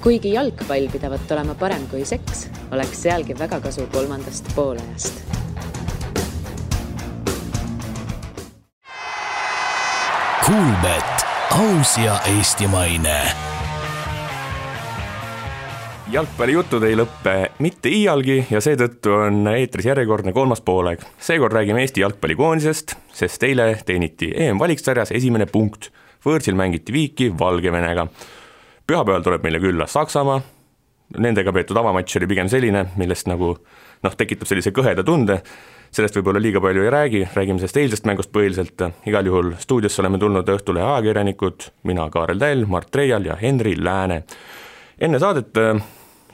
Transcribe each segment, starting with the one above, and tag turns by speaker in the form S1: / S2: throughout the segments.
S1: Kuigi jalgpall pidavat olema parem kui seks, oleks sealgi väga kasu kolmandast poolajast.
S2: Kuulbet, aus ja eestimaine.
S3: Jalgpallijutud ei lõppe mitte iialgi ja seetõttu on eetris järjekordne kolmas poolaeg. Seekord räägime Eesti jalgpallikoondisest, sest eile teeniti EM-valiksarjas esimene punkt. Võõrsil mängiti viiki Valgevenega. Pühapäeval tuleb meile külla Saksamaa. Nendega peetud avamatš oli pigem selline, millest tekitab sellise kõheda tunde. Sellest võib-olla liiga palju ei räägime sellest eilsest mängust põhiliselt. Igal juhul stuudiosse oleme tulnud õhtule ajakirjanikud, mina Kaarel Täll, Mart Reial ja Henri Lääne. Enne saadet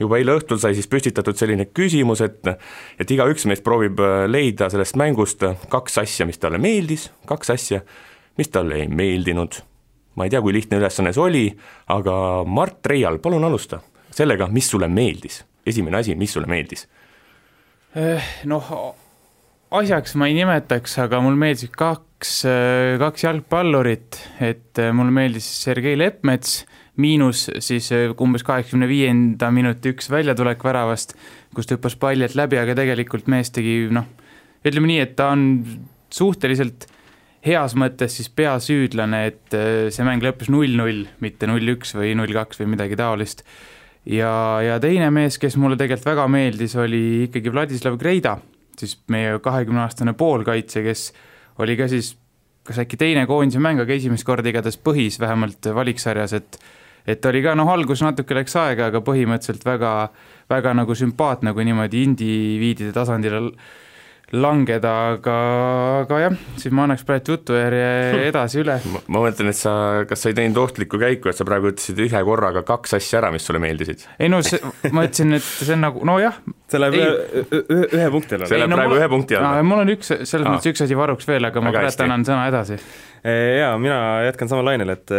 S3: juba eile õhtul sai siis püstitatud selline küsimus, et igaüks meist proovib leida sellest mängust kaks asja, mis talle meeldis, kaks asja, mis talle ei meeldinud. Ma ei tea, kui lihtne ülesanne see oli, aga Mart Reial, palun alusta sellega, mis sulle meeldis. Esimene asi, mis sulle meeldis?
S4: Asjaks ma ei nimetaks, aga mul meeldis kaks jalgpallurit, et mul meeldis Sergei Leppmets, miinus siis umbes 85. minuti üks väljatulek väravast, kus hüppas pallilt läbi, aga tegelikult mees tegi, ütleme nii, et ta on suhteliselt heas mõttes siis peasüüdlane, et see mäng lõppes 0-0, mitte 0-1 või 0-2 või midagi taolist. Ja teine mees, kes mulle tegelikult väga meeldis, oli ikkagi Vladislav Greida, siis meie 20-aastane poolkaitse, kes oli ka siis kas äkki teine koondise mäng, aga esimest korda igatahes põhis vähemalt valiksarjas, et oli ka algus natuke läks aega, aga põhimõtteliselt väga, väga nagu sümpaatne, kui niimoodi indiviidide tasandile langeda, aga jah, siis ma annaks praegu jutujärje edasi üle.
S3: Ma mõtlen, et kas sa ei teinud ohtlikku käiku, et sa praegu ütlesid ühe korraga kaks asja ära, mis sulle meeldisid?
S4: Ei ma ütlesin, et see on nagu,
S5: see läheb ühe punkti alla.
S3: See läheb praegu ühe punkti alla.
S4: Mul on selles mõttes üks asi varuks veel, aga ma praegu annan sõna edasi.
S5: Jaa, mina jätkan sama lainel, et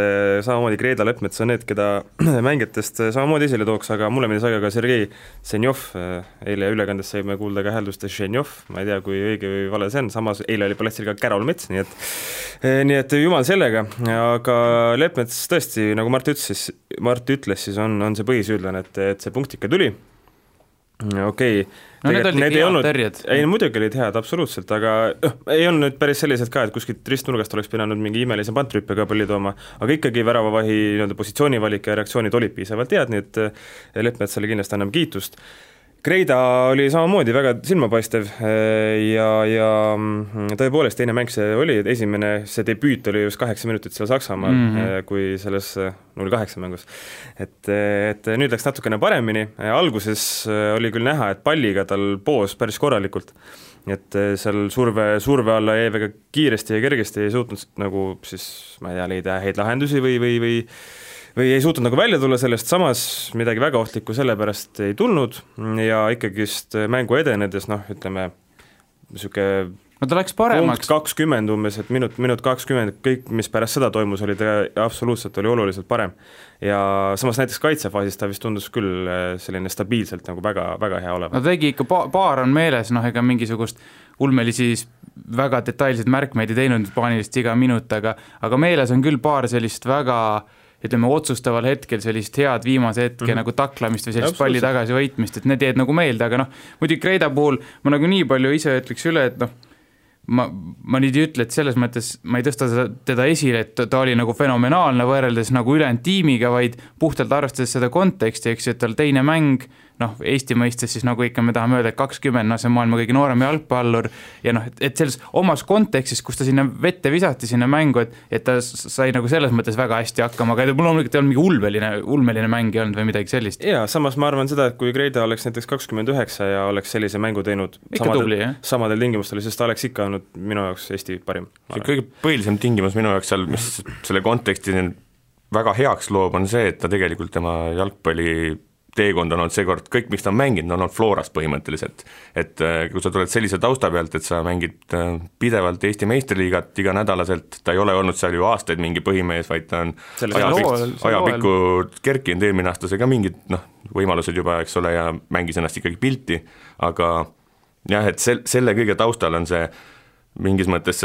S5: samamoodi Greida Leppmets on need, keda mängijatest samamoodi esile tooks, aga mulle meeldis ka Sergei Senjov, eile ülekandes saime kuulda ka hääldust Senjov, ma ei tea, kui õige või vale see on, samas eile oli paletsil ka Kärol Mets, nii et jumal sellega, aga Leppmets tõesti, nagu Mart ütles, siis on see põhisüüdlane, et see punkt ikka tuli. Okei.
S4: Need olid head terjed.
S5: Ei, muidugi olid head, absoluutselt, aga ei olnud nüüd päris sellised ka, et kuskilt ristnurgast oleks pidanud mingi imelise pantrüppe ka palli tooma, aga ikkagi väravavahi positsioonivalik ja reaktsioonid olid piisavalt head, nii et Leppmetsale kindlasti anname kiitust. Greida oli samamoodi väga silmapaistev ja tõepoolest teine mäng see oli, see debüüt oli just 8 minutit seal Saksamaal, kui selles 0-8 mängus. Et nüüd läks natukene paremini, alguses oli küll näha, et palliga tal poos päris korralikult, et seal surve alla jäi väga kiiresti ja kergesti ei suutnud nagu siis, ma ei tea, leida häid lahendusi või ei suutnud nagu välja tulla sellest, samas midagi väga ohtlikku sellepärast ei tulnud ja ikkagist mängu edenedes, ütleme,
S4: ta läks paremaks.
S5: Punkt 20 umbes, et minut 20, kõik, mis pärast seda toimus, oli ta absoluutselt oli oluliselt parem. Ja samas näiteks kaitsefaasis ta vist tundus küll selline stabiilselt nagu väga, väga hea olema.
S4: Ta tegi ikka paar on meeles, ega mingisugust ulmelisi väga detailseid märkmeid ei teinud paanilist iga minut, aga meeles on küll paar sellist väga ütleme, otsustaval hetkel sellist head viimase hetke nagu taklamist või sellist palli tagasi võitmist, et need jäid nagu meelde, aga muidugi Greida puhul ma nagu nii palju ise ütleks üle, et ma nüüd ei ütle, et selles mõttes ma ei tõsta teda esile, et ta oli nagu fenomenaalne võrreldes nagu ülejäänud tiimiga, vaid puhtalt arvestades seda konteksti, eks, et tal teine mäng, Eesti mõistes siis nagu ikka me tahame öelda, et 20, see on maailma kõige noorem jalgpallur ja et selles omas kontekstis, kus ta sinna vette visati sinna mängu, et ta sai nagu selles mõttes väga hästi hakkama, aga mul on mingi ulmeline mäng olnud või midagi sellist.
S5: Jaa, samas ma arvan seda, et kui Greida oleks näiteks 29 ja oleks sellise mängu teinud samadel tingimustel, sest ta oleks ikka olnud minu jaoks Eesti parim.
S3: See kõige põhilisem tingimus minu jaoks seal, mis selle konteksti väga heaks loob, on see, et ta tegelikult tema jalgpalli teekond on olnud seekord, kõik, miks ta on mänginud, on olnud Floras põhimõtteliselt. Et kui sa tuled sellise tausta pealt, et sa mängid pidevalt Eesti meistriliigat iga nädalaselt, ta ei ole olnud seal ju aastaid mingi põhimees, vaid ta on ajapikku kerkinud eelmine aasta, see ka mingid võimalused juba, eks ole, ja mängis ennast ikkagi pilti, aga jah, et selle kõige taustal on see mingis mõttes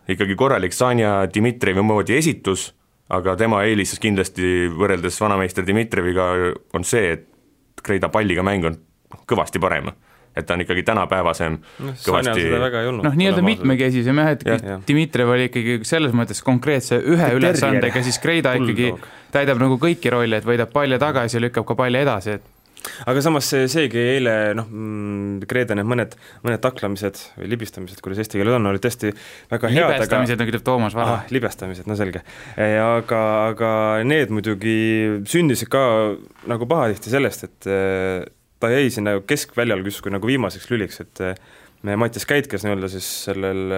S3: ikkagi korralik Sanja Dmitrijevi moodi esitus, aga tema eelis kindlasti võrreldes vanameister Dmitrijeviga on see, et Kreida palliga mäng on kõvasti parem. Et ta on ikkagi tänapäevasem kõvasti
S4: nii-öelda mitmekesisem jah, et Dmitrijev oli ikkagi selles mõttes konkreetse ühe ülesandega, siis Kreida ikkagi täidab nagu kõiki rolle, et võidab palja tagasi ja lükkab ka palja edasi, et
S5: aga samas seegi eile Kreeda need mõned taklamised või libistamised, kuidas eesti keeles on, olid tõesti väga head.
S4: Libestamised, nagu ütleb Toomas Vara.
S5: Libestamised, no selge. Aga need muidugi sündisid ka nagu pahatihti sellest, et ta jäi sinna keskväljal justkui nagu viimaseks lüliks, et Mattias Käit, kes nii-öelda siis sellel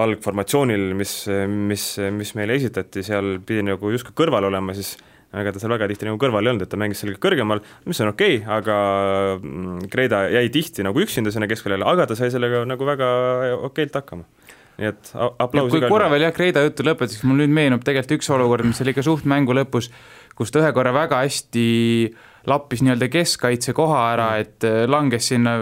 S5: algformatsioonil, mis meile esitati, seal pidi nagu justkui kõrval olema, siis aga ta seal väga tihti nagu kõrval ei olnud, et ta mängis sellega kõrgemal, mis on okei, aga Kreida jäi tihti nagu üksinda sinna keskväljale, aga ta sai sellega nagu väga okeilt hakkama. Nii et aplaus.
S4: Kui korra veel Kreida juttu lõpetas, mul nüüd meenub tegelikult üks olukord, mis oli ka suht mängu lõpus, kus ta ühe korra väga hästi lappis nii-öelda keskkaitse koha ära, et langes sinna,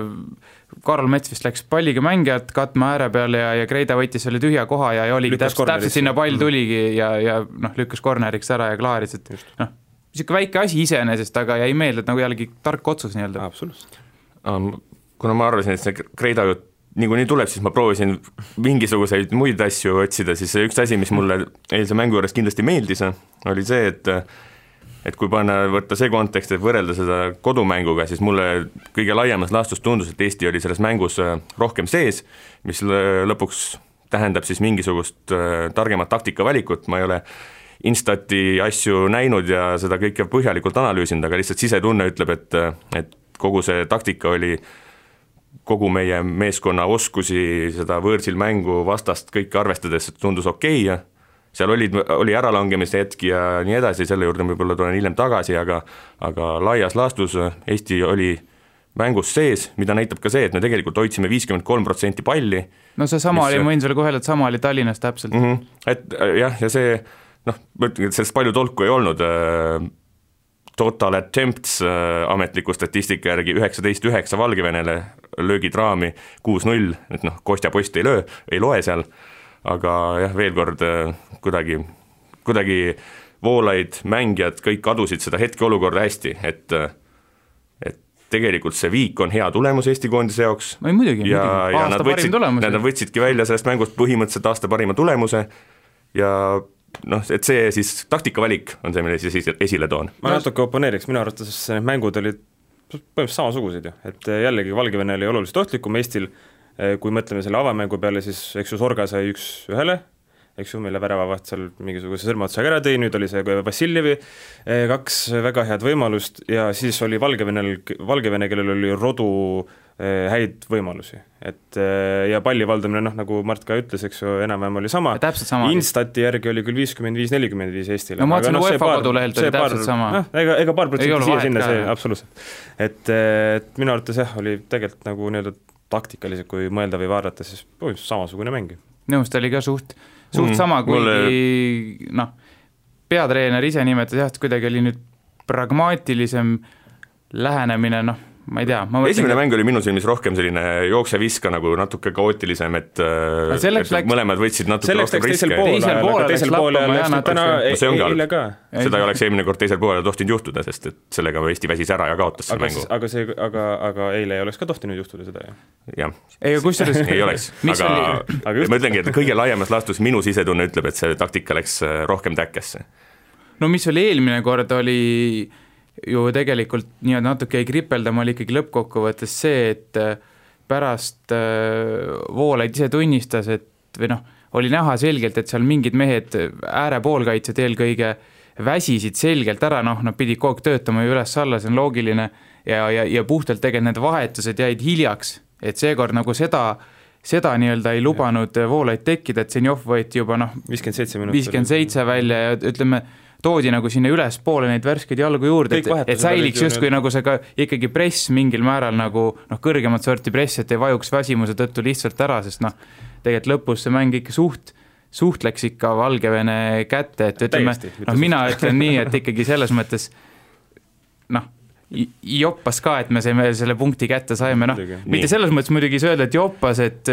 S4: Karl Mets vist läks palliga mängijat katma ääre peale ja Kreida võttis selle tühja koha ja oligi täpselt sinna pall tuligi ja lükkas korneriks ära ja klaaris, et niisugune väike asi iseenesest, aga jäi meelde, et nagu jällegi tark otsus nii-öelda.
S5: Absoluutselt.
S3: Kuna ma arvasin, et see Kreida jutt nii tuleb, siis ma proovisin mingisuguseid muid asju otsida, siis üks asi, mis mulle eilse mängu juures kindlasti meeldis, oli see, et kui võtta see kontekst, et võrrelda seda kodumänguga, siis mulle kõige laiemas laastus tundus, et Eesti oli selles mängus rohkem sees, mis lõpuks tähendab siis mingisugust targemat taktikavalikut, ma ei ole Instati asju näinud ja seda kõike põhjalikult analüüsinud, aga lihtsalt sisetunne ütleb, et kogu see taktika oli kogu meie meeskonna oskusi, seda võõrsil mängu vastast kõike arvestades, et tundus okei ja seal oli äralangemise hetki ja nii edasi, selle juurde võib-olla tulen hiljem tagasi, aga laias laastus Eesti oli mängus sees, mida näitab ka see, et me tegelikult hoidsime 53% palli.
S4: No see sama oli, ma võin sulle kohe, et sama oli Tallinnas täpselt.
S3: Et jah, ja see, sellest palju tolku ei olnud, total attempts ametliku statistika järgi 19-9 Valgevenele, löögid raami 6-0, et Kostja post ei loe seal, aga jah, veel kord kuidagi Voolaid, mängijad, kõik kadusid seda hetkeolukorda hästi, et tegelikult see viik on hea tulemus Eesti koondise jaoks.
S4: Ja
S3: nad võtsidki välja sellest mängust põhimõtteliselt aasta parima tulemuse ja et see siis taktikavalik on see, mille siis esile toon.
S5: Ma natuke oponeeriks, minu arvates need mängud olid põhimõtteliselt samasugused ju, et jällegi Valgevene oli oluliselt ohtlikum Eestil. Kui mõtleme selle avamängu peale, siis eks ju Sorga sai 1-1, eks ju, meile väravavaht seal mingisuguse sõrmaotsaga ära tõi, nüüd oli see Vassiljevi 2 väga head võimalust ja siis oli Valgevene, kellel oli rodu häid võimalusi, et ja palli valdamine, nagu Mart ka ütles, eks ju, enam-vähem oli sama. Instati järgi oli küll 55-45 Eestile.
S4: No ma ütlesin, UEFA kodulehelt oli täpselt sama.
S5: Ega paar protsenti siia sinna, see absoluutselt. Et minu arvates jah, oli tegelikult nagu nii-öelda taktikalised, kui mõelda või vaadata, siis samasugune mäng.
S4: Nõust oli ka suht sama, kuigi peatreener ise nimetas jah, et kuidagi oli nüüd pragmaatilisem lähenemine, ma ei tea.
S3: Esimene mäng oli minu silmis rohkem selline jookse-viska nagu natuke kaootilisem, et mõlemad võtsid natuke rohkem riske.
S5: Teisel poole läks eile ka.
S3: Seda ei oleks eelmine kord teisel poole tohtinud juhtuda, sest et sellega Eesti väsis ära ja kaotas selle mängu.
S5: Aga eile ei oleks ka tohtinud juhtuda seda,
S3: jah?
S4: Ei
S3: oleks, aga ma ütlengi, et kõige laiemas laastus minu sisetunne ütleb, et see taktika läks rohkem täkkesse.
S4: No mis oli eelmine kord, oli ju tegelikult natuke ei kripeldama, oli ikkagi lõppkokkuvõttes see, et pärast Voolaid ise tunnistas, et või oli näha selgelt, et seal mingid mehed äärepoolkaitsed eelkõige väsisid selgelt ära, nad pidid kogu töötama ju üles-alla, see on loogiline ja puhtalt tegelikult need vahetused jäid hiljaks, et seekord nagu seda nii-öelda ei lubanud Voolaid tekkida, et Senjov võeti juba 57 välja ja ütleme, toodi nagu sinna üles poole neid värskeid jalgu juurde, et säiliks justkui nagu see ka ikkagi press mingil määral nagu kõrgemat sorti press, et ei vajuks väsimuse tõttu lihtsalt ära, sest tegelikult lõpus see mäng ikka suht läks ikka Valgevene kätte, et ütleme, mina ütlen nii, et ikkagi selles mõttes joppas ka, et me selle punkti kätte saime, mitte selles mõttes muidugi öelda, et joppas, et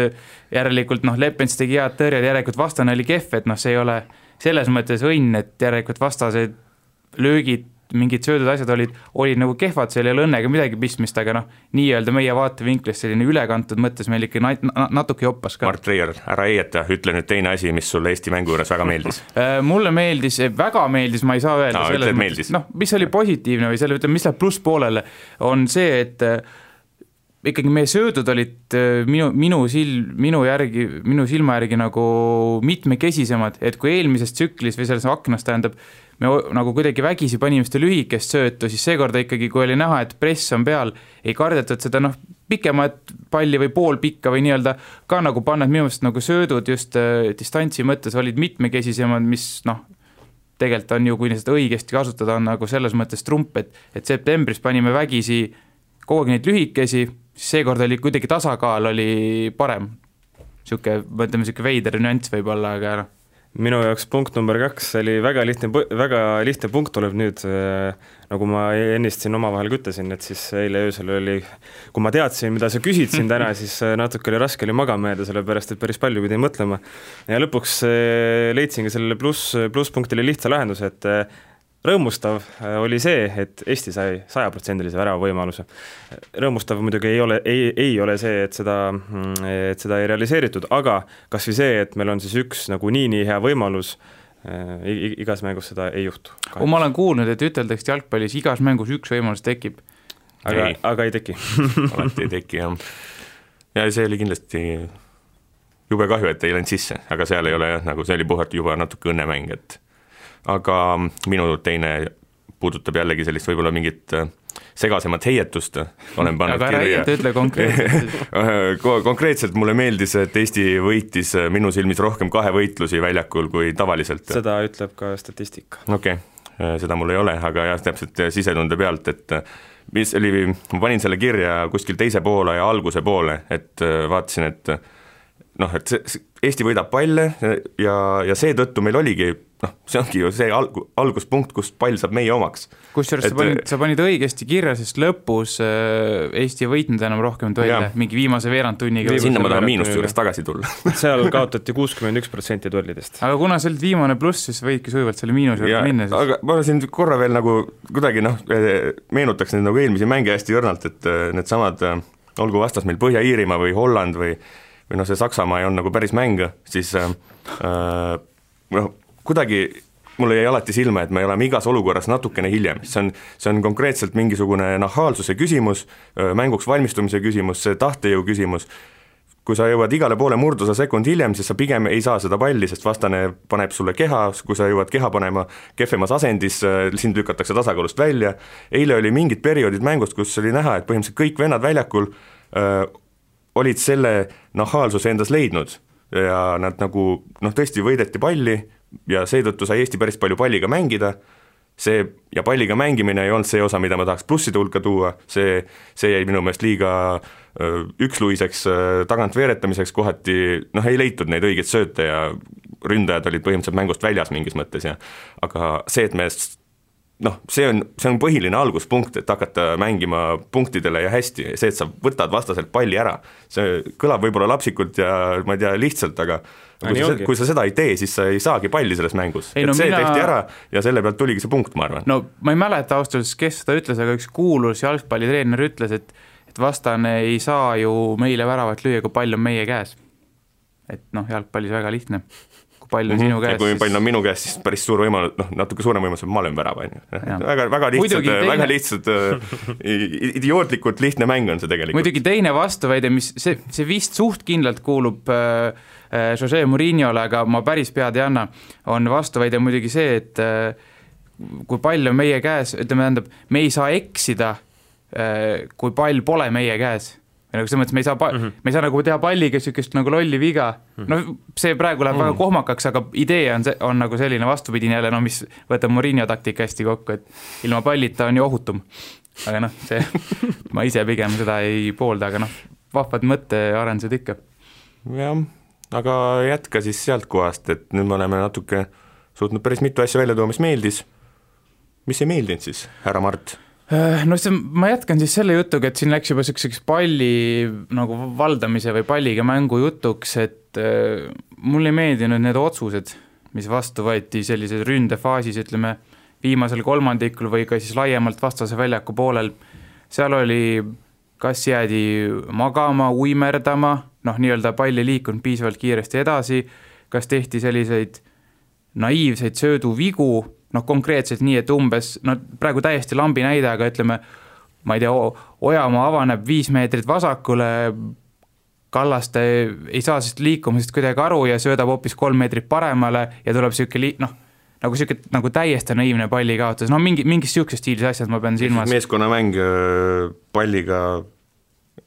S4: järelikult Lepens tegi head tõrjed, järelikult vastane oli kehv, et see selles mõttes õnn, et järelikult vastased löögid, mingid söödud asjad olid nagu kehvad, seal ei ole õnnega midagi pistmist, aga nii-öelda meie vaatevinklist selline ülekantud mõttes meil ikka natuke joppas ka.
S3: Mart Reier, ära eieta, ütle nüüd teine asi, mis sulle Eesti mängu juures väga meeldis.
S4: Mulle väga meeldis, ma ei saa öelda selles mõttes, mis oli positiivne või selle, mis läheb plusspoolele, on see, et ikkagi meie söödud olid minu silma järgi nagu mitmekesisemad, et kui eelmises tsüklis või selles aknas tähendab, me nagu kuidagi vägisi panime seda lühikest söötu, siis seekorda ikkagi, kui oli näha, et press on peal, ei kardetud seda pikemat palli või pool pikka või nii-öelda ka nagu panna, et minu meelest nagu söödud just distantsi mõttes olid mitmekesisemad, mis tegelikult on ju, kui seda õigesti kasutada, on nagu selles mõttes trump, et septembris panime vägisi kogu aeg neid lühikesi, siis seekord oli kuidagi tasakaal oli parem. Mõtleme, veider nüanss võib olla, aga
S5: minu jaoks punkt number 2 oli väga lihtne punkt tuleb nüüd, nagu ma ennist siin omavahel kütlesin, et siis eile öösel oli, kui ma teadsin, mida sa küsid siin täna, siis natuke oli raske magama jääda, sellepärast et päris palju pidi mõtlema. Ja lõpuks leidsingi sellele plusspunktile lihtsa lahenduse, et rõõmustav oli see, et Eesti sai 100% värava võimaluse. Rõõmustav muidugi ei ole see, et seda ei realiseeritud, aga kas või see, et meil on siis üks nagu nii hea võimalus, igas mängus seda ei juhtu.
S4: Ma olen kuulnud, et üteldakse jalgpallis igas mängus üks võimalus tekib.
S5: Aga ei teki.
S3: Alati ei teki, jah. Ja see oli kindlasti jube kahju, et ei läinud sisse, aga seal ei ole nagu see oli puhalt juba natuke õnnemäng, et aga minu teine puudutab jällegi sellist võib-olla mingit segasemat heietust, olen pannud
S4: aga kirja. Aga ütle konkreetselt.
S3: Konkreetselt mulle meeldis, et Eesti võitis minu silmis rohkem 2 võitlusi väljakul kui tavaliselt.
S5: Seda ütleb ka statistika.
S3: Okei, seda mul ei ole, aga jah, täpselt sisetunde pealt, et mis oli, ma panin selle kirja kuskil teise poole ja alguse poole, et vaatasin, et Eesti võidab palle ja seetõttu meil oligi, see ongi ju see alguspunkt, kus pall saab meie omaks.
S4: Kusjuures sa panid õigesti kirja, sest lõpus Eesti võitnud enam rohkem duelle, mingi viimase veerandtunniga.
S3: Sinna ma tahan miinust juures tagasi tulla.
S5: Seal kaotati 61% duellidest.
S4: Aga kuna see oli viimane pluss, siis võidki sujuvalt selle miinus juurde minna.
S3: Aga ma siin korra veel nagu kuidagi meenutaks neid nagu eelmisi mänge hästi õrnalt, et need samad, olgu vastas meil Põhja-Iirimaa või Holland või see Saksamaa on nagu päris mäng, siis kuidagi mulle jäi alati silma, et me oleme igas olukorras natukene hiljem. See on konkreetselt mingisugune nahaalsuse küsimus, mänguks valmistumise küsimus, see tahtejõu küsimus. Kui sa jõuad igale poole murdusa sekund hiljem, siis sa pigem ei saa seda palli, sest vastane paneb sulle keha, kui sa jõuad keha panema kehvemas asendis, sind lükatakse tasakaalust välja. Eile oli mingid perioodid mängust, kus oli näha, et põhimõtteliselt kõik vennad väljakul olid selle nahaalsuse endas leidnud ja nad nagu tõesti võideti palli ja seetõttu sai Eesti päris palju palliga mängida, ja palliga mängimine ei olnud see osa, mida ma tahaks plusside hulka tuua, see jäi minu meelest liiga üksluiseks tagant veeretamiseks, kohati ei leitud neid õigeid sööte ja ründajad olid põhimõtteliselt mängust väljas mingis mõttes, aga see, et me see on põhiline alguspunkt, et hakata mängima punktidele ja hästi, see, et sa võtad vastaselt palli ära, see kõlab võib-olla lapsikult ja ma ei tea, lihtsalt, aga kui sa seda ei tee, siis sa ei saagi palli selles mängus. Tehti ära ja selle pealt tuligi see punkt, ma arvan.
S4: No ma ei mäleta austus, kes seda ütles, aga üks kuulus jalgpallitreener ütles, et vastane ei saa ju meile väravat lüüa, kui pall on meie käes. Et jalgpallis väga lihtne. Pall on sinu käes. Ja
S3: kui pall on minu käes, siis päris suur võimalus, natuke suurem võimalus, et ma olen värava. Väga lihtsalt, idiootlikult lihtne mäng on see tegelikult.
S4: Muidugi teine vastuväide, mis see vist suht kindlalt kuulub Jose Mourinhole, aga ma päris pead ei anna, on vastuväide muidugi see, et kui pall on meie käes, ütleme, me ei saa eksida, kui pall pole meie käes. Selles mõttes me ei saa nagu teha palliga sükest nagu lolli viga. See praegu läheb väga kohmakaks, aga idee on nagu selline vastupidine jälle, mis võtab Mourinho taktika hästi kokku, et ilma pallita on ju ohutum. Aga ma ise pigem seda ei poolda, aga vahvad mõttearendused ikka.
S3: Jah, aga jätka siis sealt kohast, et nüüd me oleme natuke suutnud päris mitu asja välja tuua, mis meeldis. Mis ei meeldinud siis, härra Mart?
S4: Ma jätkan siis selle jutuga, et siin läks juba selliseks palli nagu valdamise või palliga mängu jutuks, et mul ei meeldinud need otsused, mis vastu võeti sellises ründefaasis, ütleme, viimasel kolmandikul või ka siis laiemalt vastase väljaku poolel, seal oli, kas jäädi magama, uimerdama, nii-öelda pall ei liikunud piisavalt kiiresti edasi, kas tehti selliseid naiivseid sööduvigu, konkreetselt nii, et umbes, praegu täiesti lambi näide, aga ütleme, ma ei tea, Ojamaa avaneb 5 meetrit vasakule, Kallaste ei saa sest liikumisest kuidagi aru ja söödab hoopis 3 meetrit paremale ja tuleb nagu täiesti naiivne palli kaotus, mingis siuksest stiilis asjad ma pean silmas.
S3: Meeskonnamäng palliga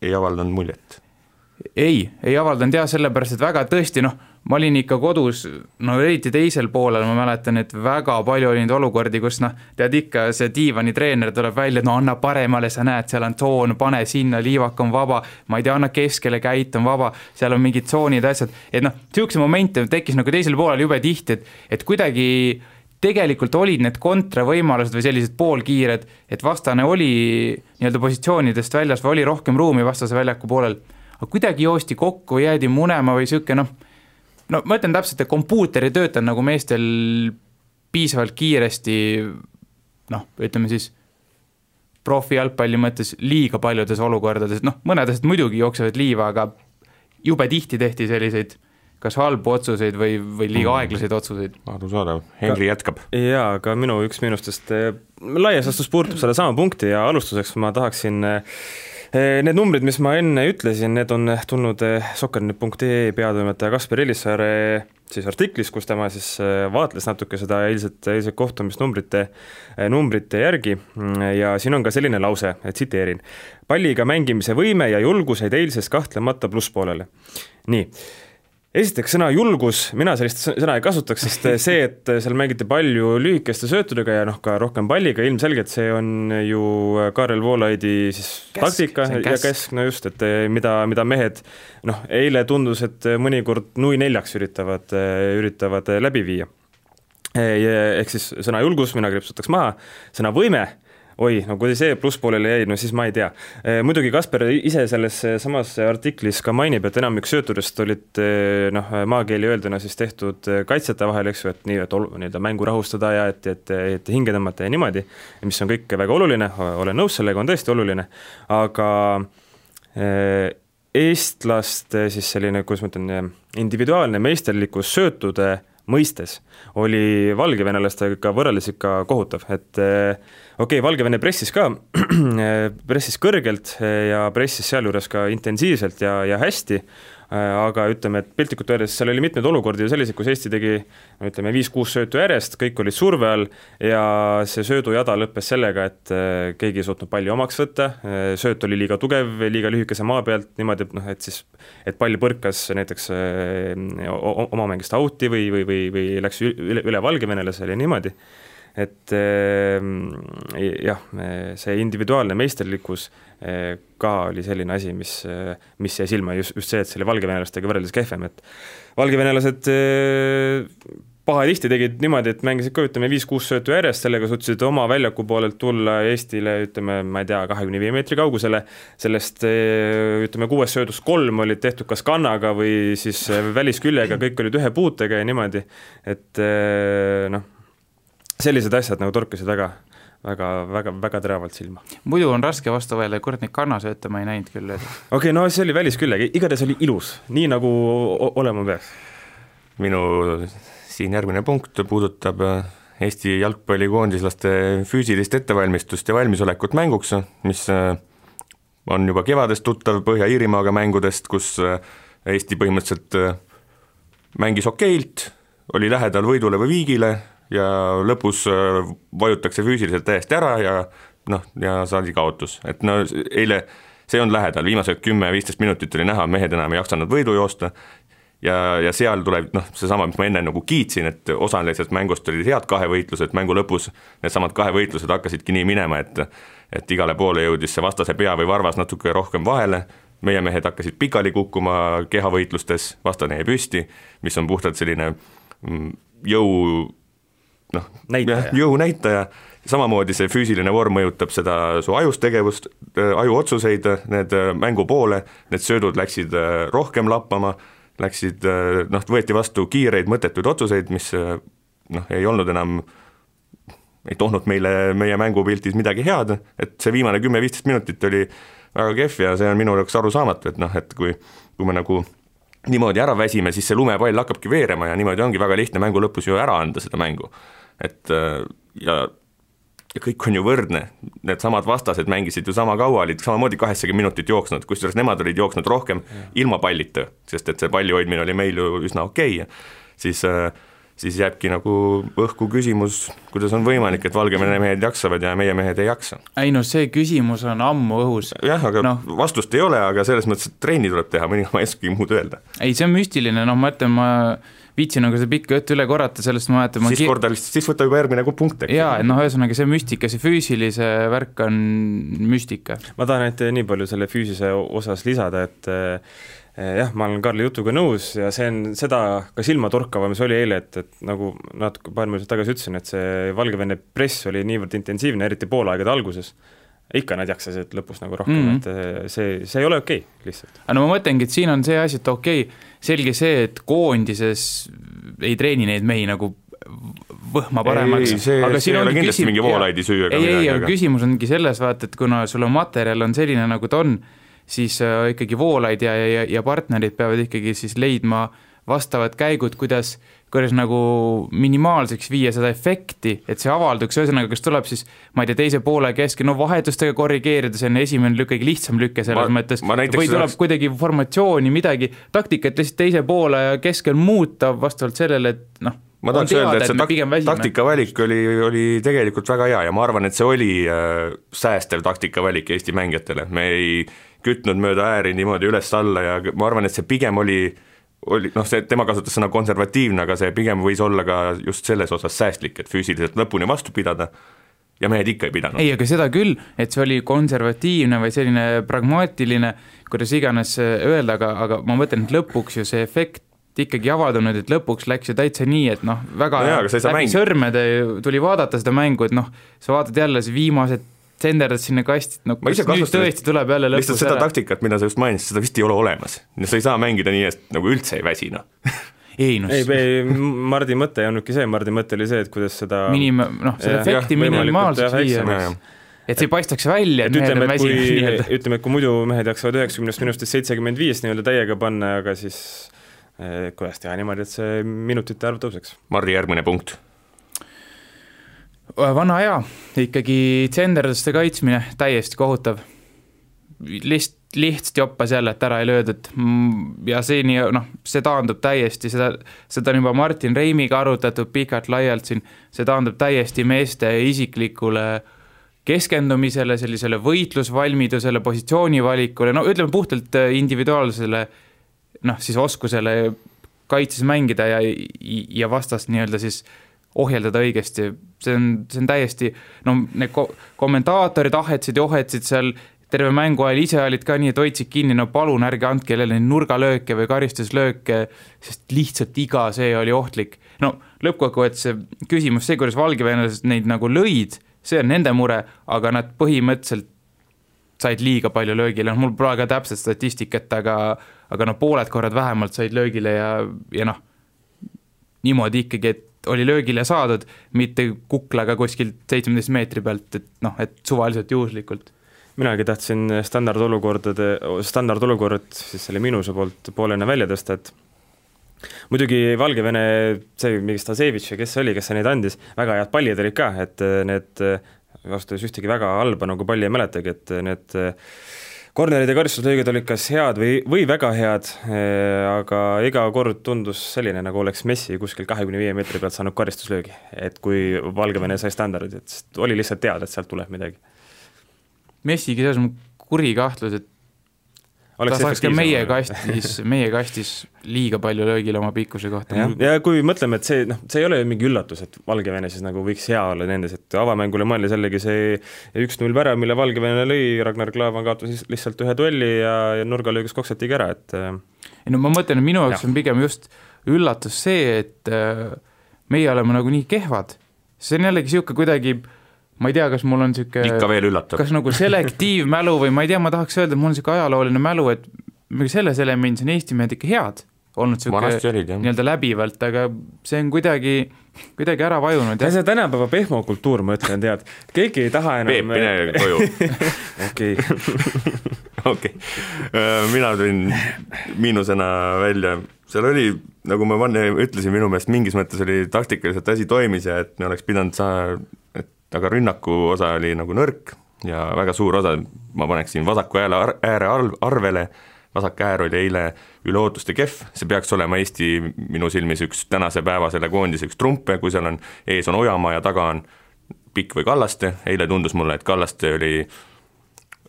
S3: ei avaldanud muljet?
S4: Ei avaldanud sellepärast, et väga tõesti, ma olin ikka kodus, eriti teisel poolel, ma mäletan, et väga palju oli neid olukordi, kus tead ikka, see diivani treener tuleb välja, anna paremale, sa näed, seal on tsoon, pane sinna, liivak on vaba, ma ei tea, anna keskele, käit on vaba, seal on mingid tsoonid, asjad, et siukse momente tekkis teisel poolel jube tihti, et kuidagi tegelikult olid need kontravõimalused või sellised poolkiired, et vastane oli nii-öelda positsioonidest väljas või oli rohkem ruumi vastase väljaku poolel, aga kuidagi joosti kokku, jäädi munema või siuke, ma ütlen täpselt, et kompuuter ei tööta nagu meestel piisavalt kiiresti, ütleme siis profi jalgpalli mõttes liiga paljudes olukordades, mõnedest muidugi jooksevad liiva, aga jube tihti tehti selliseid kas halbu otsuseid või liiga aeglaseid otsuseid.
S3: Arusaadav, Henri jätkab.
S5: Jaa, aga minu üks miinustest laias astus puudutab selle sama punkti ja alustuseks ma tahaksin need numbrid, mis ma enne ütlesin, need on tulnud soccer.ee peatoimetaja Kaspar Elissaare siis artiklis, kus tema siis vaatles natuke seda eilset kohtumist numbrite järgi ja siin on ka selline lause, et tsiteerin: palliga mängimise võime ja julgus jäid eilses kahtlemata plusspoolele. Nii. Esiteks sõna julgus, mina sellist sõna ei kasutaks, sest see, et seal mängiti palju lühikeste söötudega ja ka rohkem palliga, ilmselgelt see on ju Kaarel Voolaidi siis taktika ja kesk, just, et mida mehed, eile tundus, et mõnikord nui 4 üritavad läbi viia. Ehk siis sõna julgus, mina kripsutaks maha, sõna võime, kui see plusspoolele jäi, siis ma ei tea. Muidugi Kasper ise selles samas artiklis ka mainib, et enamik söötudest olid maakeeli öelduna siis tehtud kaitsjate vahel, eks ju, et nii, et mängu rahustada ja et hinge tõmmata ja niimoodi, mis on kõik väga oluline, olen nõus sellega, on tõesti oluline, aga eestlaste siis selline, kuidas ma ütlen, individuaalne meisterlikkus söötude mõistes oli valgevenelastega võrreldes ikka kohutav, et Valgevene pressis kõrgelt ja pressis sealjuures ka intensiivselt ja hästi, aga ütleme, et piltlikult öeldes seal oli mitmeid olukordi selliseid, kus Eesti tegi 5-6 söötu järjest, kõik olid surve all ja see söödujada lõppes sellega, et keegi ei suutnud palli omaks võtta, sööt oli liiga tugev, liiga lühikese maa pealt, niimoodi, et pall põrkas näiteks oma mängist auti või läks üle Valgevenelasele ja niimoodi. Et jah, see individuaalne meisterlikkus ka oli selline asi, mis jäi silma just see, et selle valgevenelastega võrreldes kehvem, et valgevenelased pahatihti tegid niimoodi, et mängisid ka 5-6 söötu järjest, sellega suutsid oma väljaku poolelt tulla Eestile, ma ei tea, 25 meetri kaugusele, sellest 6 söödust 3 olid tehtud kas kannaga või siis välisküljega, kõik olid ühe puutega ja niimoodi, et sellised asjad torkasid väga teravalt silma.
S4: Muidu on raske vastu võelda, kord neid kannasööte ma ei näinud küll.
S5: See oli välisküljega, igatahes oli ilus, nii nagu olema peaks.
S3: Minu siin järgmine punkt puudutab Eesti jalgpallikoondislaste füüsilist ettevalmistust ja valmisolekut mänguks, mis on juba kevadest tuttav Põhja-Iirimaaga mängudest, kus Eesti põhimõtteliselt mängis okeilt, oli lähedal võidule või viigile ja lõpus vajutakse füüsiliselt täiesti ära ja saadi kaotus. Et eile see on lähedal, viimased 10-15 minutit oli näha, mehed enam ei jaksanud võidu joosta ja seal tuleb seesama, mis ma enne kiitsin, et osalisest mängust olid head kahevõitlused, mängu lõpus need samad kahevõitlused hakkasidki nii minema, et igale poole jõudis see vastase pea või varvas natuke rohkem vahele, meie mehed hakkasid pikali kukkuma kehavõitlustes, vastane jäi püsti, mis on puhtalt selline jõunäitaja, samamoodi see füüsiline vorm mõjutab seda su ajustegevust, ajuotsuseid, need mängu poole, need söödud läksid rohkem lappama, läksid, võeti vastu kiireid mõttetuid otsuseid, mis ei olnud enam, ei toonud meile meie mängupiltis midagi head, et see viimane 10-15 minutit oli väga kehv ja see on minu jaoks arusaamatu, et kui me nagu niimoodi ära väsime, siis see lumepall hakkabki veerema ja niimoodi ongi väga lihtne mängu lõpus ju ära anda seda mängu. Et ja kõik on ju võrdne, need samad vastased mängisid ju sama kaua, olid samamoodi 80 minutit jooksnud, kusjuures nemad olid jooksnud rohkem ilma pallita, sest et see palli hoidmine oli meil ju üsna okei. Siis jääbki nagu õhku küsimus, kuidas on võimalik, et Valgevene mehed jaksavad ja meie mehed ei jaksa.
S4: Ei see küsimus on ammu õhus.
S3: Jah, aga vastust ei ole, aga selles mõttes, et treeni tuleb teha, mõni ma ei oskagi muud öelda.
S4: Ei, see on müstiline, ma ütlen, ma viitsin seda pikka juttu üle korrata, sellest ma mäletan.
S3: Siis võtta juba järgmine punkt.
S4: Jaa, ühesõnaga see müstika, see füüsilise värk on müstika.
S5: Ma tahan nii palju selle füüsise osas lisada, et jah, ma olen Karli jutuga nõus ja see on seda ka silmatorkava, mis oli eile, et nagu natuke paar minutit tagasi ütlesin, et see Valgevene press oli niivõrd intensiivne, eriti poolaegade alguses. Ikka nad jaksasid lõpus nagu rohkem, et see ei ole okei, lihtsalt.
S4: Ma mõtlengi, et siin on see asi, et okei, selge see, et koondises ei treeni neid mehi nagu võhma paremaks.
S3: See ei ole kindlasti mingi voolaidi süü.
S4: Ei, aga küsimus ongi selles, et kuna sul on materjal on selline nagu ta on, siis ikkagi voolaid ja partnerid peavad ikkagi siis leidma vastavad käigud, kuidas nagu minimaalseks viia seda efekti, et see avalduks, ühesõnaga, kas tuleb siis, ma ei tea, teise poole keske, vahetustega korrigeerida, see on esimene lükke, lihtsam lükke selles mõttes, või tuleb kuidagi formatsiooni, midagi, taktikat lihtsalt teise poole ja keskel muuta vastavalt sellele, et
S3: ma tahaks öelda, et see taktikavalik oli tegelikult väga hea ja ma arvan, et see oli säästev taktikavalik Eesti mängijatele, me ei kütnud mööda ääri niimoodi üles-alla ja ma arvan, et see pigem oli see, tema kasutas sõna konservatiivne, aga see pigem võis olla ka just selles osas säästlik, et füüsiliselt lõpuni vastu pidada ja mehed ikka ei pidanud.
S4: Ei, aga seda küll, et see oli konservatiivne või selline pragmaatiline, kuidas iganes öelda, aga ma mõtlen, et lõpuks ju see efekt ikkagi avaldunud, et lõpuks läks ju täitsa nii, et väga läbi sõrmede tuli vaadata seda mängu, et sa vaatad jälle see viimased senderdad sinna kastid, nüüd tõesti tuleb jälle lõpus
S3: lihtsalt seda taktikat, mida sa just mainisid, seda vist ei ole olemas. Sa ei saa mängida nii, et nagu üldse ei väsi,
S5: Ei, Mardi mõte ei olnudki see, Mardi mõte oli see, et kuidas seda
S4: seda efekti minimaalseks viia. Et see paistaks välja, et mehed on väsinud.
S5: Ütleme, et kui muidu mehed jaksavad 90 minutist 75 nii-öelda täiega panna, aga siis kuidas teha niimoodi, et see minutite arv tõuseks.
S3: Mardi järgmine punkt.
S4: Vana hea, ikkagi tsenderdaste kaitsmine täiesti kohutav. Lihtsalt joppas jälle, et ära ei löödud ja see taandub täiesti, seda on juba Martin Reimiga arutatud pikalt laialt siin, see taandub täiesti meeste isiklikule keskendumisele, sellisele võitlusvalmidusele, positsioonivalikule, ütleme puhtalt individuaalsele siis oskusele kaitses mängida ja vastast nii-öelda siis ohjeldada õigesti, see on täiesti, need kommentaatorid ohetsid seal terve mängu ajal, ise olid ka nii, et hoidsid kinni, palun ärge andke jälle nurgalööke või karistuslööke, sest lihtsalt iga see oli ohtlik. Lõppkokkuvõttes see küsimus, see, kuidas valgevenelased neid nagu lõid, see on nende mure, aga nad põhimõtteliselt said liiga palju löögile, mul pole ka täpselt statistikat, aga pooled korrad vähemalt said löögile ja niimoodi ikkagi, et oli löögile saadud, mitte kuklaga kuskilt 17 meetri pealt, et suvaliselt juhuslikult.
S5: Minagi tahtsin standardolukorrad siis selle Miinuse poolt poolena välja tõsta, et muidugi Valgevene, see mingi Stasevitš ja kes neid andis, väga head pallid olid ka, et need vastus ühtegi väga halba nagu palli ei mäletagi, et need kornerid ja karistuslöögid olid kas head või väga head, aga iga kord tundus selline, nagu oleks Messi kuskil 25 meetri pealt saanud karistuslöögi, et kui Valgevene sai standardid, et oli lihtsalt teada, et sealt tuleb midagi.
S4: Messigi selles on kuri kahtlus, et ta saaks ka meie kastis liiga palju löögile oma pikkuse kohta.
S5: Ja kui mõtleme, et see ei ole mingi üllatus, et Valgevene siis nagu võiks hea olla nendes, et avamängule mõeldi sellegi see 1-0 värav, mille Valgevene lõi, Ragnar Klavan kaotas lihtsalt ühe duelli ja nurgalöögus koksatigi ära, et
S4: ma mõtlen, et minu jaoks on pigem just üllatus see, et meie oleme nagu nii kehvad. See on jällegi siuke kuidagi, ma ei tea, kas mul on siuke
S3: ikka veel üllatab.
S4: Kas nagu selektiivmälu või ma ei tea, ma tahaks öelda, et mul on siuke ajalooline mälu, et selles elemendis on Eesti mehed ikka head. olnud nii-öelda läbivalt, aga see on kuidagi ära vajunud.
S5: See tänapäeva pehmokultuur, ma ütlen, tead, keegi ei taha enam...
S3: Peep, mine koju. Okei. Mina tulin miinusena välja. Seal oli, nagu ma ütlesin, minu meelest mingis mõttes oli taktikaliselt asi toimis ja et me oleks pidanud aga rünnaku osa oli nagu nõrk ja väga suur osa, ma paneksin vasaku ääre arvele. Vasak äär oli eile üle ootuste kehv, see peaks olema Eesti minu silmis üks tänase päeva selle koondise üks trumpe, kui seal on ees on Ojamaa ja taga on Pikk või Kallaste, eile tundus mulle, et Kallaste oli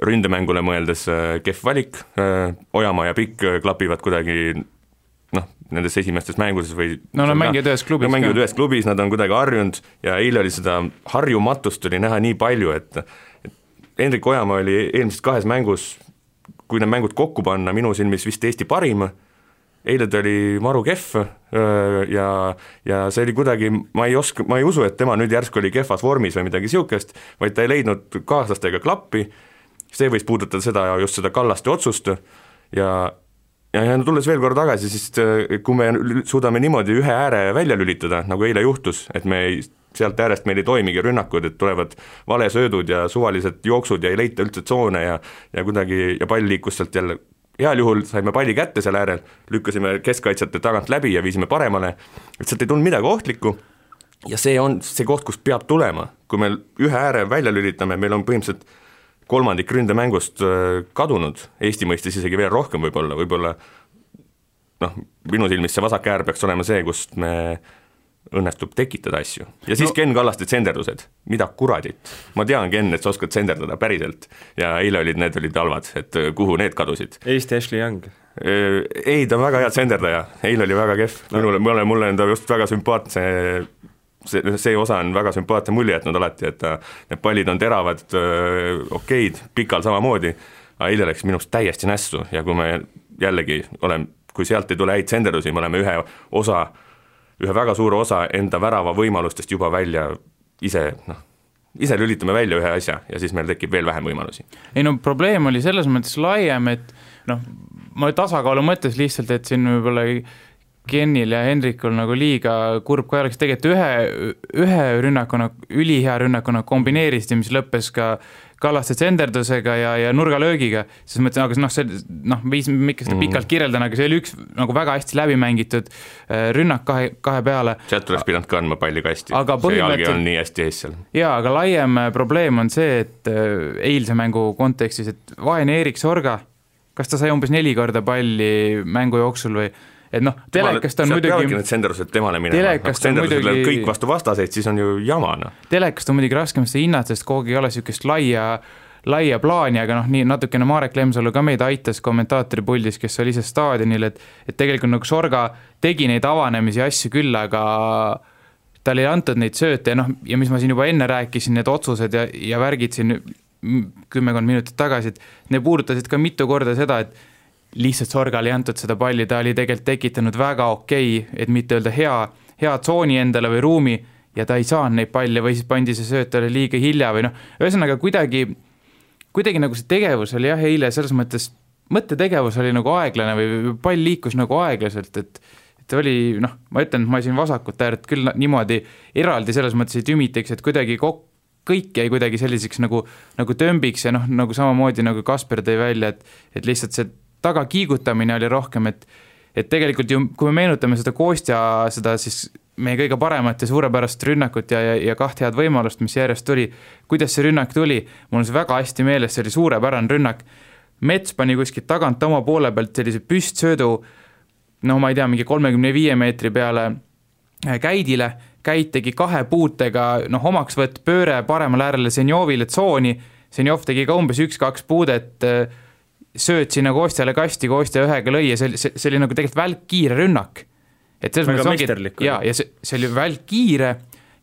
S3: ründemängule mõeldes kehv valik, Ojamaa ja Pikk klapivad kuidagi nendes esimestes mängudes või
S4: nad mängivad ühes
S3: klubis, nad on kuidagi harjunud ja eile oli seda harjumatust oli näha nii palju, et Hendrik Ojamaa oli eelmises 2 mängus kui need mängud kokku panna, minu silmis vist Eesti parim, eile ta oli maru kehv ja see oli kuidagi, ma ei usu, et tema nüüd järsku oli kehvas vormis või midagi siukest, vaid ta ei leidnud kaaslastega klappi, see võis puudutada just seda Kallaste otsust ja tulles veel kord tagasi, siis kui me suudame niimoodi ühe ääre välja lülitada, nagu eile juhtus, et sealt äärest meil ei toimigi rünnakud, et tulevad valesöödud ja suvalised jooksud ja ei leita üldse tsoone ja kuidagi ja pall liikus sealt jälle, heal juhul saime palli kätte seal äärel, lükkasime keskkaitsjate tagant läbi ja viisime paremale, et sealt ei tulnud midagi ohtlikku ja see on see koht, kust peab tulema, kui me ühe ääre välja lülitame, meil on põhimõtteliselt kolmandik ründemängust kadunud, Eesti mõistis isegi veel rohkem võib-olla minu silmis see vasak äär peaks olema see, kust me õnnestub tekitada asju. Ja siis Ken Kallaste tsenderdused. Mida kuradit? Ma tean, Ken, et sa oskad tsenderdada päriselt. Ja eile need olid halvad, et kuhu need kadusid.
S5: Eesti Ashley Young.
S3: Ei, ta on väga hea tsenderdaja. Eile oli väga kehv. Mulle on ta just väga sümpaatne. See osa on väga sümpaatne mulje, et nad alati, et need pallid on teravad, okeid, Pikal samamoodi. Aga eile läks minust täiesti nässu ja kui me jällegi kui sealt ei tule häid tsenderdusi, me oleme ühe väga suure osa enda värava võimalustest juba välja ise lülitame välja ühe asja ja siis meil tekib veel vähem võimalusi.
S4: Ei probleem oli selles mõttes laiem, et ma tasakaalu mõttes lihtsalt, et siin võib-olla Kenil ja Hendrikul nagu liiga kurb, kui oleks tegelikult ühe rünnakuna, ülihea rünnakuna kombineerisid, mis lõppes ka Kallaste tsenderdusega ja nurgalöögiga, siis mõtlen, aga miks seda pikalt kirjeldan, aga see oli üks nagu väga hästi läbimängitud rünnak kahe peale.
S3: Sealt tuleks pidanud kandma palli kasti, see jalgi on nii hästi ees seal.
S4: Jaa, aga laiem probleem on see, et eilse mängu kontekstis, et vaene Erik Sorga, kas ta sai umbes 4 korda palli mängu jooksul või et telekast on muidugi... Sealt peavadki need tsenderused temale minema. Muidugi... Kõik vastu vastaseid, siis on ju jamana. Telekast on muidugi raskem seda hinnata, sest kogu ei ole niisugust laia plaani, aga nii natukene Marek Lemsalu ka meid aitas kommentaatori puldis, kes oli ise staadionil, et tegelikult nagu Sorga tegi neid avanemisi asju küll, aga tal ei antud neid sööte ja mis ma siin juba enne rääkisin, need otsused ja värgid siin 10 minutit tagasi, et ne puudutasid ka mitu korda seda, et lihtsalt Sorgal ei antud seda palli, ta oli tegelikult tekitanud väga okei, et mitte öelda hea tsooni endale või ruumi ja ta ei saanud neid palle või siis pandi see söötale liiga hilja või ühesõnaga kuidagi nagu see tegevus oli eile selles mõttes, mõttetegevus oli nagu aeglane või pall liikus nagu aeglaselt, et oli, ma ütlen, et ma siin vasakut äärt küll niimoodi eraldi selles mõttes ei tümiteks, et kuidagi kõik jäi kuidagi selliseks nagu tömbiks ja nagu samamoodi nagu Kasper tõi välja, et lihtsalt see taga kiigutamine oli rohkem, et tegelikult ju, kui me meenutame seda Kostja, seda siis meie kõige paremat ja suurepärast rünnakut ja 2 head võimalust, mis järjest tuli, kuidas see rünnak tuli, mul on see väga hästi meeles, see oli suurepärane rünnak, Mets pani kuskilt tagant oma poole pealt sellise püstsöödu, ma ei tea, mingi 35 meetri peale Käidile, Käid tegi 2 puutega, omaksvõtt pööre paremal äärele Senjovile tsooni, Senjov tegi ka umbes 1-2 puudet, sööt sinna Kostjale kasti, Kostja ühega lõi ja see oli nagu tegelikult välkkiire rünnak. Et
S5: väga meisterlik.
S4: Ja see oli välkkiire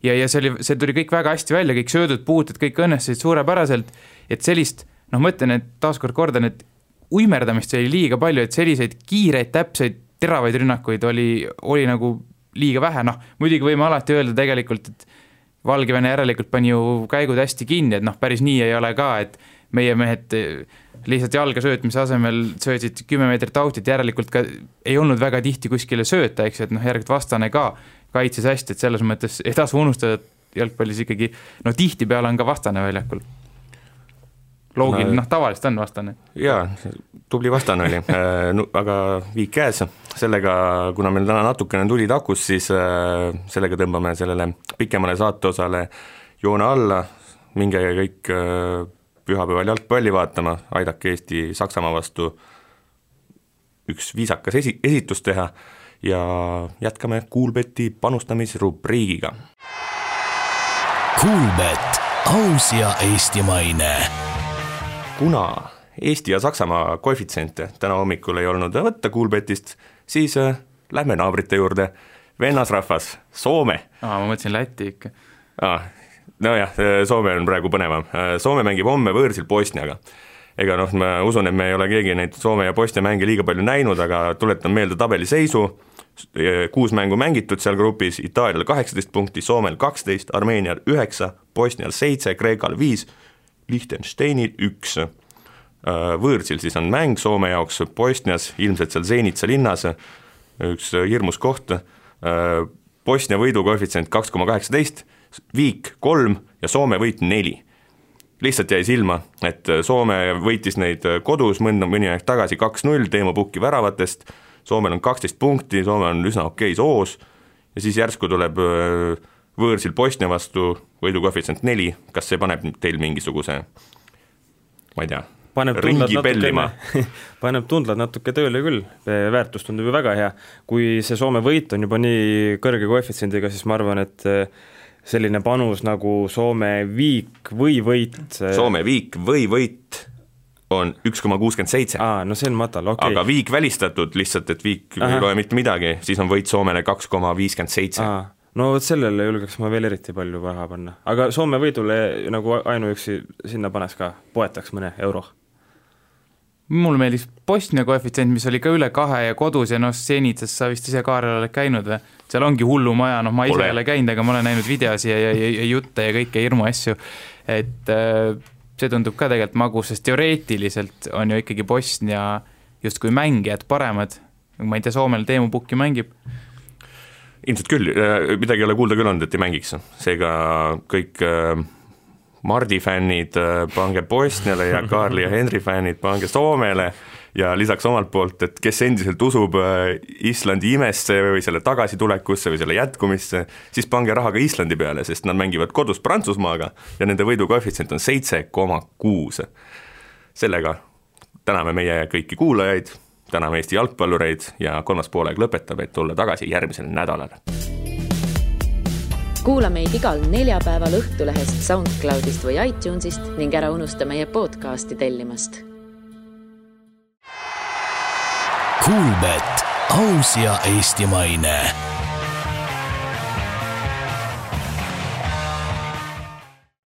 S4: ja see tuli kõik väga hästi välja, kõik söödud puuted, kõik õnnestusid suurepäraselt, et sellist, mõtlen, et taaskord kordan, et uimerdamist oli liiga palju, et selliseid kiireid, täpseid, teravaid rünnakuid oli nagu liiga vähe, muidugi võime alati öelda tegelikult, et Valgevene järelikult pani ju käigud hästi kinni, et päris nii ei ole ka, et meie mehed lihtsalt jalga söötmise asemel söötsid 10 meetrit autit, järelikult ka ei olnud väga tihti kuskile sööta, eks, et järelikult vastane ka kaitses hästi, et selles mõttes ei tasu unustada, et jalgpallis ikkagi, tihtipeale on ka vastane väljakul. Loogiline, tavaliselt on vastane.
S3: Jaa, tubli vastane oli, aga viik käes. Sellega, kuna meil täna natukene tuli takus, siis sellega tõmbame sellele pikemale saateosale joone alla, minge kõik pühapäeval jalgpalli vaatama, aidake Eesti Saksamaa vastu üks viisakas esitus teha ja jätkame Kuulbeti panustamisrubriigiga.
S2: Kuulbet, aus ja eestimaine.
S3: Kuna Eesti ja Saksamaa koefitsiente täna hommikul ei olnud võtta Kuulbetist, siis lähme naabrite juurde. Vennasrahvas, Soome.
S4: Ma mõtlesin Läti ikka.
S3: Nojah, Soome on praegu põnevam. Soome mängib homme võõrsil Bosniaga. Ega ma usun, et me ei ole keegi neid Soome ja Bosnia mänge liiga palju näinud, aga tuletan meelde tabeli seisu. 6 mängu mängitud seal grupis, Itaalial 18 punkti, Soomel 12, Armeenial 9, Bosnial 7, Kreekal 5, Liechtensteinil 1. Võõrsil siis on mäng Soome jaoks Bosnias, ilmselt seal Zenitsa linnas, üks hirmus koht. Bosnia võidu koefitsient 2,18, viik 3 ja Soome võit 4. Lihtsalt jäi silma, et Soome võitis neid kodus mõni aeg tagasi 2-0 Teemu Pukki väravatest, Soomel on 12 punkti, Soome on üsna okei soos ja siis järsku tuleb võõrsil Bosnia vastu võidu koefitsient 4, kas see paneb teil mingisuguse, ma ei tea, ringi pellima?
S5: Paneb tundlad natuke tööle küll, väärtus tundub ju väga hea. Kui see Soome võit on juba nii kõrge koefitsiendiga, siis ma arvan, et selline panus nagu Soome viik või võit.
S3: Soome viik või võit on 1,67.
S5: No see on matal, okei.
S3: Aga viik välistatud lihtsalt, et viik ei loe mitte midagi, siis on võit Soomele 2,57.
S5: No sellele julgeks ma veel eriti palju raha panna. Aga Soome võidule nagu ainuüksi sinna panes ka, poetaks mõne euro.
S4: Mul meeldis Bosnia koefitsient, mis oli ka üle 2 ja kodus ja Zenitsas sa vist ise Kaarel oled käinud. Seal ongi hullu maja, ma ise ei ole käinud, aga ma olen näinud videosi ja jutte ja kõike hirmu asju. Et see tundub ka tegelikult magus, sest teoreetiliselt on ju ikkagi Bosnia justkui mängijad paremad. Ma ei tea, Soomel Teemu Pukki mängib.
S3: Ilmselt küll, midagi ei ole kuulda küll olnud, et ei mängiks. Seega kõik Mardi fännid pange Bosniale ja Karli ja Henri fännid pange Soomele ja lisaks omalt poolt, et kes endiselt usub Islandi imesse või selle tagasitulekusse või selle jätkumisse, siis pange raha ka Islandi peale, sest nad mängivad kodus Prantsusmaaga ja nende võidu koefitsient on 7,6. Sellega täname meie kõiki kuulajaid, täname Eesti jalgpallureid ja kolmas poolega lõpetab, et tulla tagasi järgmisel nädalal.
S1: Kuula meid igal neljapäeval Õhtulehest, SoundCloudist või iTunesist ning ära unusta meie podcasti tellimast.
S2: Kuulbet, aus ja eestimaine.